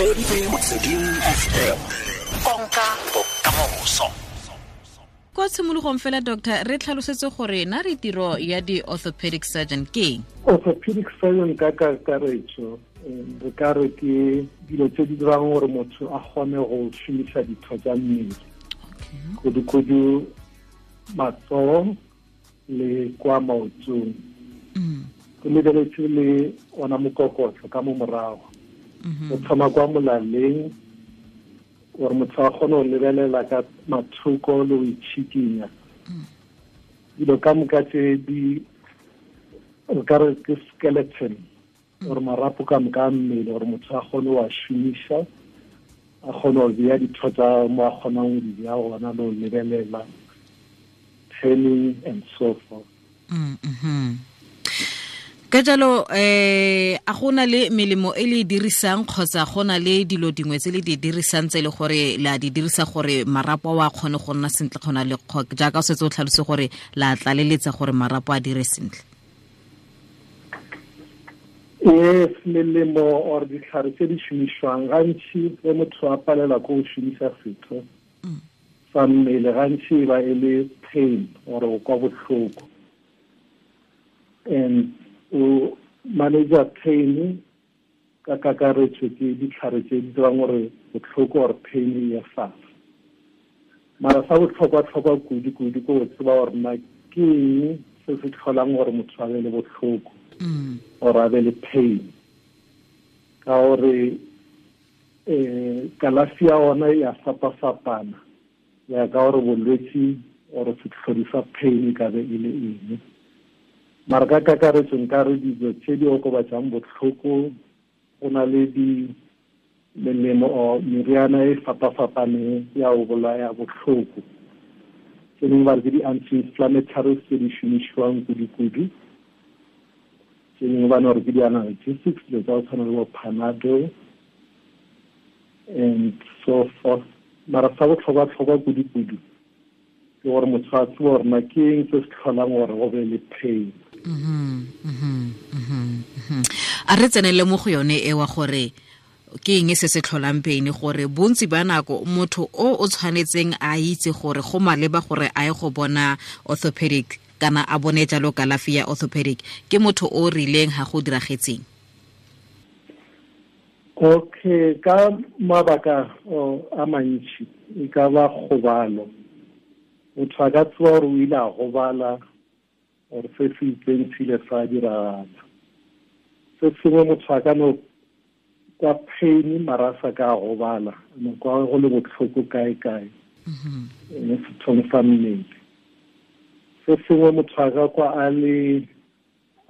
Motsweding FM, konka bokamoso. Kwa tshimologong fela, doctor, re tlhalosetse gore na re tiro ya di-orthopedic surgeon ke eng? Orthopedic surgeon ka kakaretso, re ka re ke dilo tse di dirang gore motho a kgone go šomiša ditho tsa mmele, kudu-kudu matsogo le kwa maotong, go lebeletse le ona mokokotlo ka mo morago, o thoma kwa molaleng, gore motho a kgone go lebelela ka mathoko le go itšhikinya. Dilo ka moka tse di re ka re ke skeleton, gore marapo ka moka a mmele, gore motho a kgone go a šomiša, a kgone go bea ditho tsa mo a kgonang go di bea gona, le go lebelela, turning and so forth. Ka jalo, a gona le melemo e le e dirisang, kgotsa gona le dilo dingwe tse le di dirisang tse e le gore la di dirisa gore marapo a kgone go nna sentle, kgona le jaaka o setse o tlhalose gore la tlaleletsa gore marapo a dire sentle? Yes, melemo or ditlhare tse di šomišwang gantši ge motho a palela ko go šomiša setho sa mmele, gantši e ba e le pain or go kwa bohloko, and o manager pain ka kakaretso ke ditlhare tse di dirang gore botlhoko or pain e ye fatshe. Mara sa botlhokwa-tlhokwa kudu-kudu ke go tseba gore na ke eng se se tlholang gore motho a be le botlhoko or a be le pain, ka gore kalafi ya ona ya fapa-fapana ya ka gore bolwetsi or setlhodi sa pain e ka be e le eng. Mara ka kakaretso nka re dilo tse di okobatsang botlhoko, go na le di melemo or meriana e fapa-fapaneng ya go bolaya botlhoko, tse dingwe ba re ke di-anti-inflammatories tse di šomišiwang kudu-kudu, tse dingwe ba ne gore ke di-analgesics, dilo tsa go tshwana le bo Panadol and so forth. Mara sa botlhokwa-tlhokwa kudu-kudu ke gore motho a tsebe gore na ke eng se se tlholang gore go be le pain. A re tsenele mo go yone ewa gore ke eng se se tlholang pain, gore bontsi ba nako motho o o tshwanetseng a itse gore go maleba gore a ye go bona orthopedic kana a bone jalo kalafi ya orthopedic ke motho o rileng ga go diragetseng? Okay, ka mabaka a mantši, e ka ba kgobalo. Motho a ka tseba gore o ile a gobala or se se itseng se ile sa diragala. Se sengwe, motho a ka no kwa pain mara a sa ka a gobala, no kwa go le botlhoko kae-kae mo sethong sa mmele. Se sengwe, motho a ka kwa a le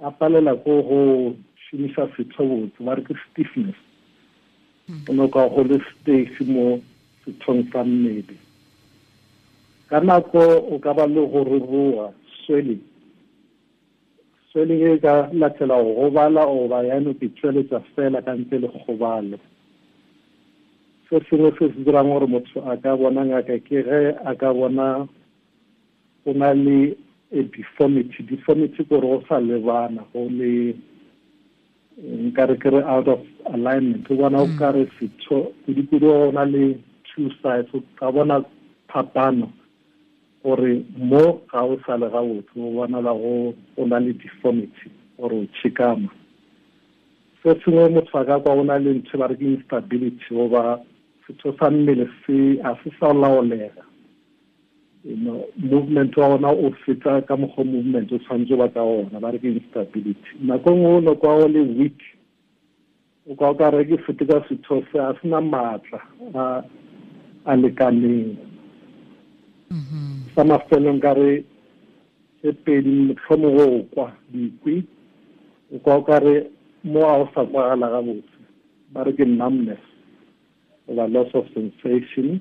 a palela ko go šomiša setho botse, ba re ke stiffness, o no kwa go le stiff mo sethong sa mmele. Ka nako o ka ba le go ruruga, swelling. Swelling e ka latela go gobala goba ya no ke tšweletša fela ka ntle le kgobalo. Se sengwe se se dirang gore motho a ka bona ngaka ke ge a ka bona go na le a deformity. Deformity ke gore go sa lebana, go le nka re ke re out of alignment, o bona o ka re setho kudu-kudu go na le two sides, o ka bona phapano gore mo ga o sa le gabotse, o bonala go na le deformity gore o tšhikama. Se sengwe, motho a ka kwa o na le ntho ba re ke instability, goba setho sa mmele se a se sa laolega, movement wa ona o feta ka mokgwa movement o tshwanetse ba ka ona, ba re ke instability. Nako nngwe o no kwa o le weak, o kwa o ka re ke fete ka setho se a sena maatla a lekaneng. Sa mafelong ka re tse pedi, mohlomongwe o kwa dikwi, o kwa o ka re mo a o sa kwagala gabotse, ba re ke numbness goba loss of sensation,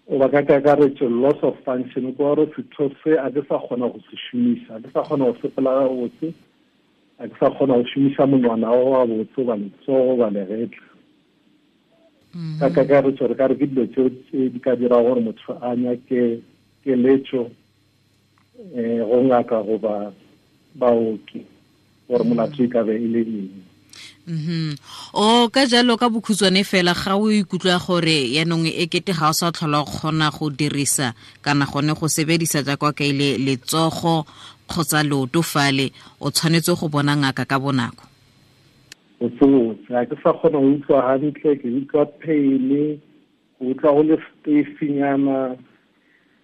goba ka kakaretso loss of function, kwa gore setho se a ke sa kgona go se šomiša, a ke sa kgona go sepela gabotse, a ke sa kgona go šomiša monwana o gabotse goba letsogo goba legetla. Ka kakaretso re ka re ke dilo tseo tse di ka dira gore motho a nyake keletšo go ngaka goba baoki gore molato e ka be e le eng. O ka jalo ka bokhutswane fela ga o ikutlwa gore yanong e kete ga o sa tlhola o kgona go dirisa kana gone go sebedisa jaaka ka ile letsogo kgotsa leoto fale, o tshwanetse go bona ngaka ka bonako. O tsotse ga ke sa kgona go utlwa hantle, ke utlwa pain, go utlwa go le stiffnyana,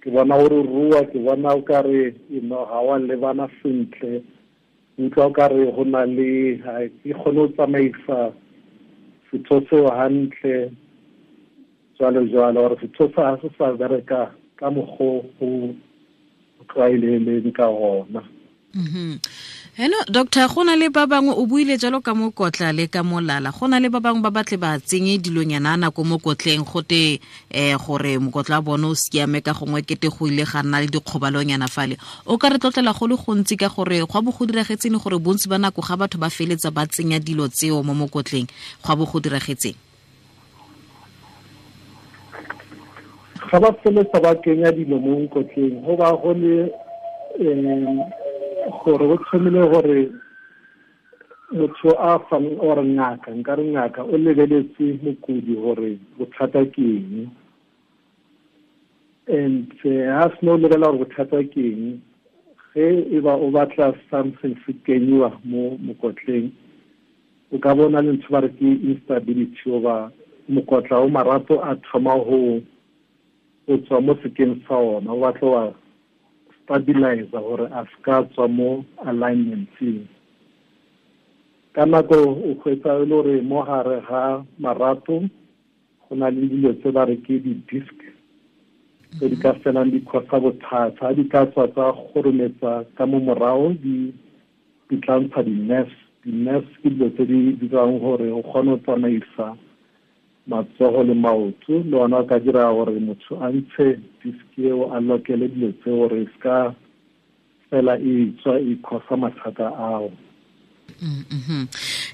ke bona gore rua, ke bona o kare ga wa lebana sentle, utlwa o kare go na le ga ke kgone go tsamaisa setho seo hantle, jwalo jwalo, gore setho sa ga se sa bereka ka mokgwa o tlwaeleleng ka gona. Hello doctor, go na le ba bangwe o buile jalo ka mokotla le ka molala, go na le ba bangwe ba batle ba tsenye dilonyana nako mo kotleng gote gore mokotla bone o siame ka gongwe kete go ile ga nna le dikgobalonyana fale. O ka re tlotlela go le gontsi ka gore go bo go diragetseng gore bontsi ba nako ga batho ba feletsa ba tsenya dilo tseo mo mokotleng, go bo go diragetseng? Ga ba feletsa ba kenya dilo mo mokotleng go ba go le gore go tlhomile gore motho a fang or ngaka, nka re ngaka o lebeletse mokudi gore bothata ke eng, and ha seno lebelela gore bothata ke eng, ge e ba o batla something se kenyiwa mo mokotleng, o ka bona le ntho ba re ke instability goba mokotla o marato a thoma go tswa mo sekeng sa ona, o batla wa stabilize gore a ska tswa mo alignment-eng. Ka nako o hwetsa e le gore mo gare ga marato go na le dilo tse ba re ke di-disc tse di ka felang di causa bothata, di ka tswa tsa kgorometsa ka mo morago di tla ntsha di-nerves. Di-nerves ke dilo tse di dirang gore o kgone go tsamaisa matsogo le maoto, le ona o ka dira gore motho a ntshe disk eo a lokele dilo tse gore se ka fela e tswa e causa mathata ao.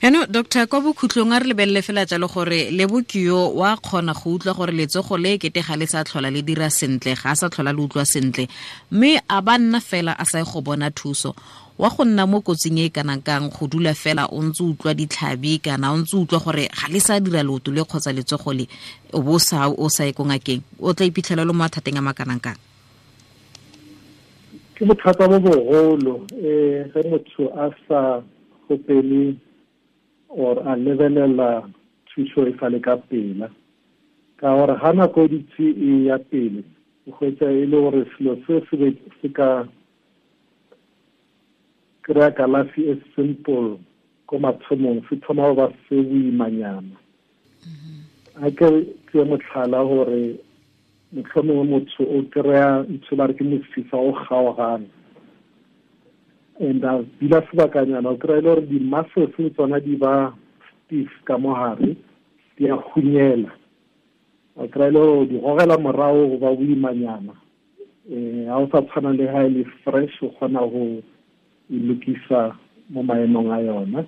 Eno doctor, kwa bokhutlong a re lebelele fela jalo gore Lebokio wa kgona go utlwa gore letsogo le kete ga le sa tlhola le dira sentle, ga a sa tlhola le utlwa sentle, mme a ba nna fela a sa go bona thuso, wa go nna mo kotsing e kanang kang go dula fela o ntse utlwa ditlhabi kana o ntse utlwa gore ga le sa dira leoto le kgotsa letsogo le, o bo sa o sa ye ko ngakeng, o tla iphitlhela le mo mathateng a makanang kang? Ke bothata bo bogolo ge motho a sa gopele or a lebelela thuso e sa le ka pela, ka gore ga nako e ditse e ya pele o hwetsa e le gore selo se se ka kry-a kalafi e simple ko mathomong se thoma go ba se boimanyana. A ke tseye motlhala gore mohlomongwe motho o kry-a ntho ba re ke mosifa o kgaogana, and a dula sebakanyana o kry-a e le gore di-muscles le tsona di ba stiff ka mo gare, di a hunyela, o kry-a e le gore di gogela morago go ba boimanyana. Ga o sa tshwana le ga e le fresh, o kgona go e lokisa mo maemong a yona.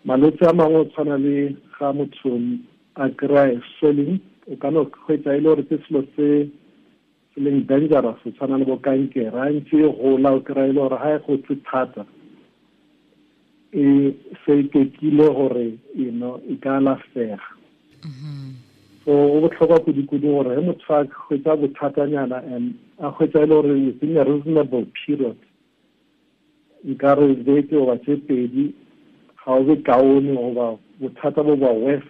Malwetse a mangwe o tshwana le ga motho a kry-a swelling, o ka no hwetsa e le gore ke selo se se leng dangerous, o tshwana le bo kankere, a ntse e gola o kry-a e le gore ga e gotse thata e se ikekile gore e ka alafega. So go botlhokwa kudu-kudu gore ge motho a hwetsa bothatanyana and a hwetsa e le gore within a reasonable period, nka re beke goba tse pedi ga o be kaone goba bothata bo ba worse,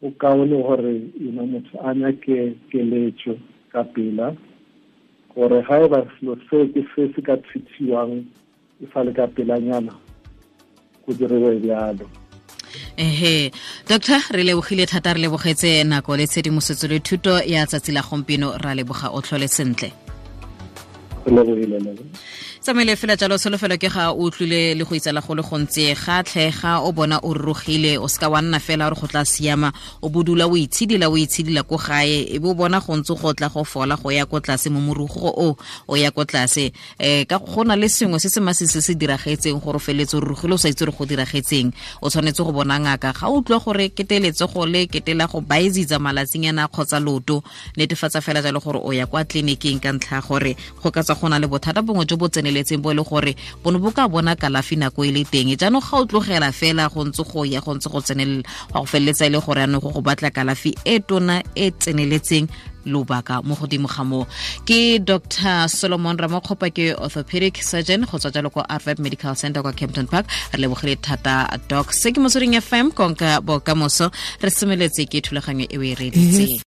o kaone gore motho a nyake keletso ka pela, gore ga e ba selo seo ke se se ka treatiwang e sa le ka pelanyana go diriwe bjalo. Ehe doctor, re lebogile thata, re lebogetse nako le tshedimosetso le thuto ya tsatsi la gompieno, ra leboga, o tlhole sentle. Re lebogile. Tsamaile fela jalo, solofelo ke ga o utlwile le go itsala go le gontsi, ga tlhega o bona o rurugile, o seka wa nna fela gore go tla siama, o bodula o itshidila ko gae, e bo bona go ntse go tla go fola go ya ko tlase mo morugo o ya ko tlase. Ka go na le sengwe se se masisi se se diragetseng gore o feletse o rurugile o sa itse gore go diragetseng, o tshwanetse go bona ngaka. Ga o utlwa gore kete letsogo le kete la go baezitsa malatsinyana kgotsa loto, netefatsa fela jalo gore o ya kwa tleliniking ka ntlha gore go ka tswa go na le bothata bongwe jo bo tseneletseng. tseneletseng bo e le gore bone bo ka bona kalafi nako e le teng. Jaanong ga o tlogela fela go ntse go ya go ntse go tsenelela, go feleletsa e le gore anong go batla kalafi e tona e tseneletseng lobaka mo godimo ga moo. Ke Dr. Solomon Ramokgopa, ke orthopedic surgeon go tswa jalo kwa Arvep Medical Center kwa Kempton Park. Re lebogile thata, Doc. Se ke Motsweding FM, konka bokamoso. Re semeletse ke thulaganyo e o e reditseng.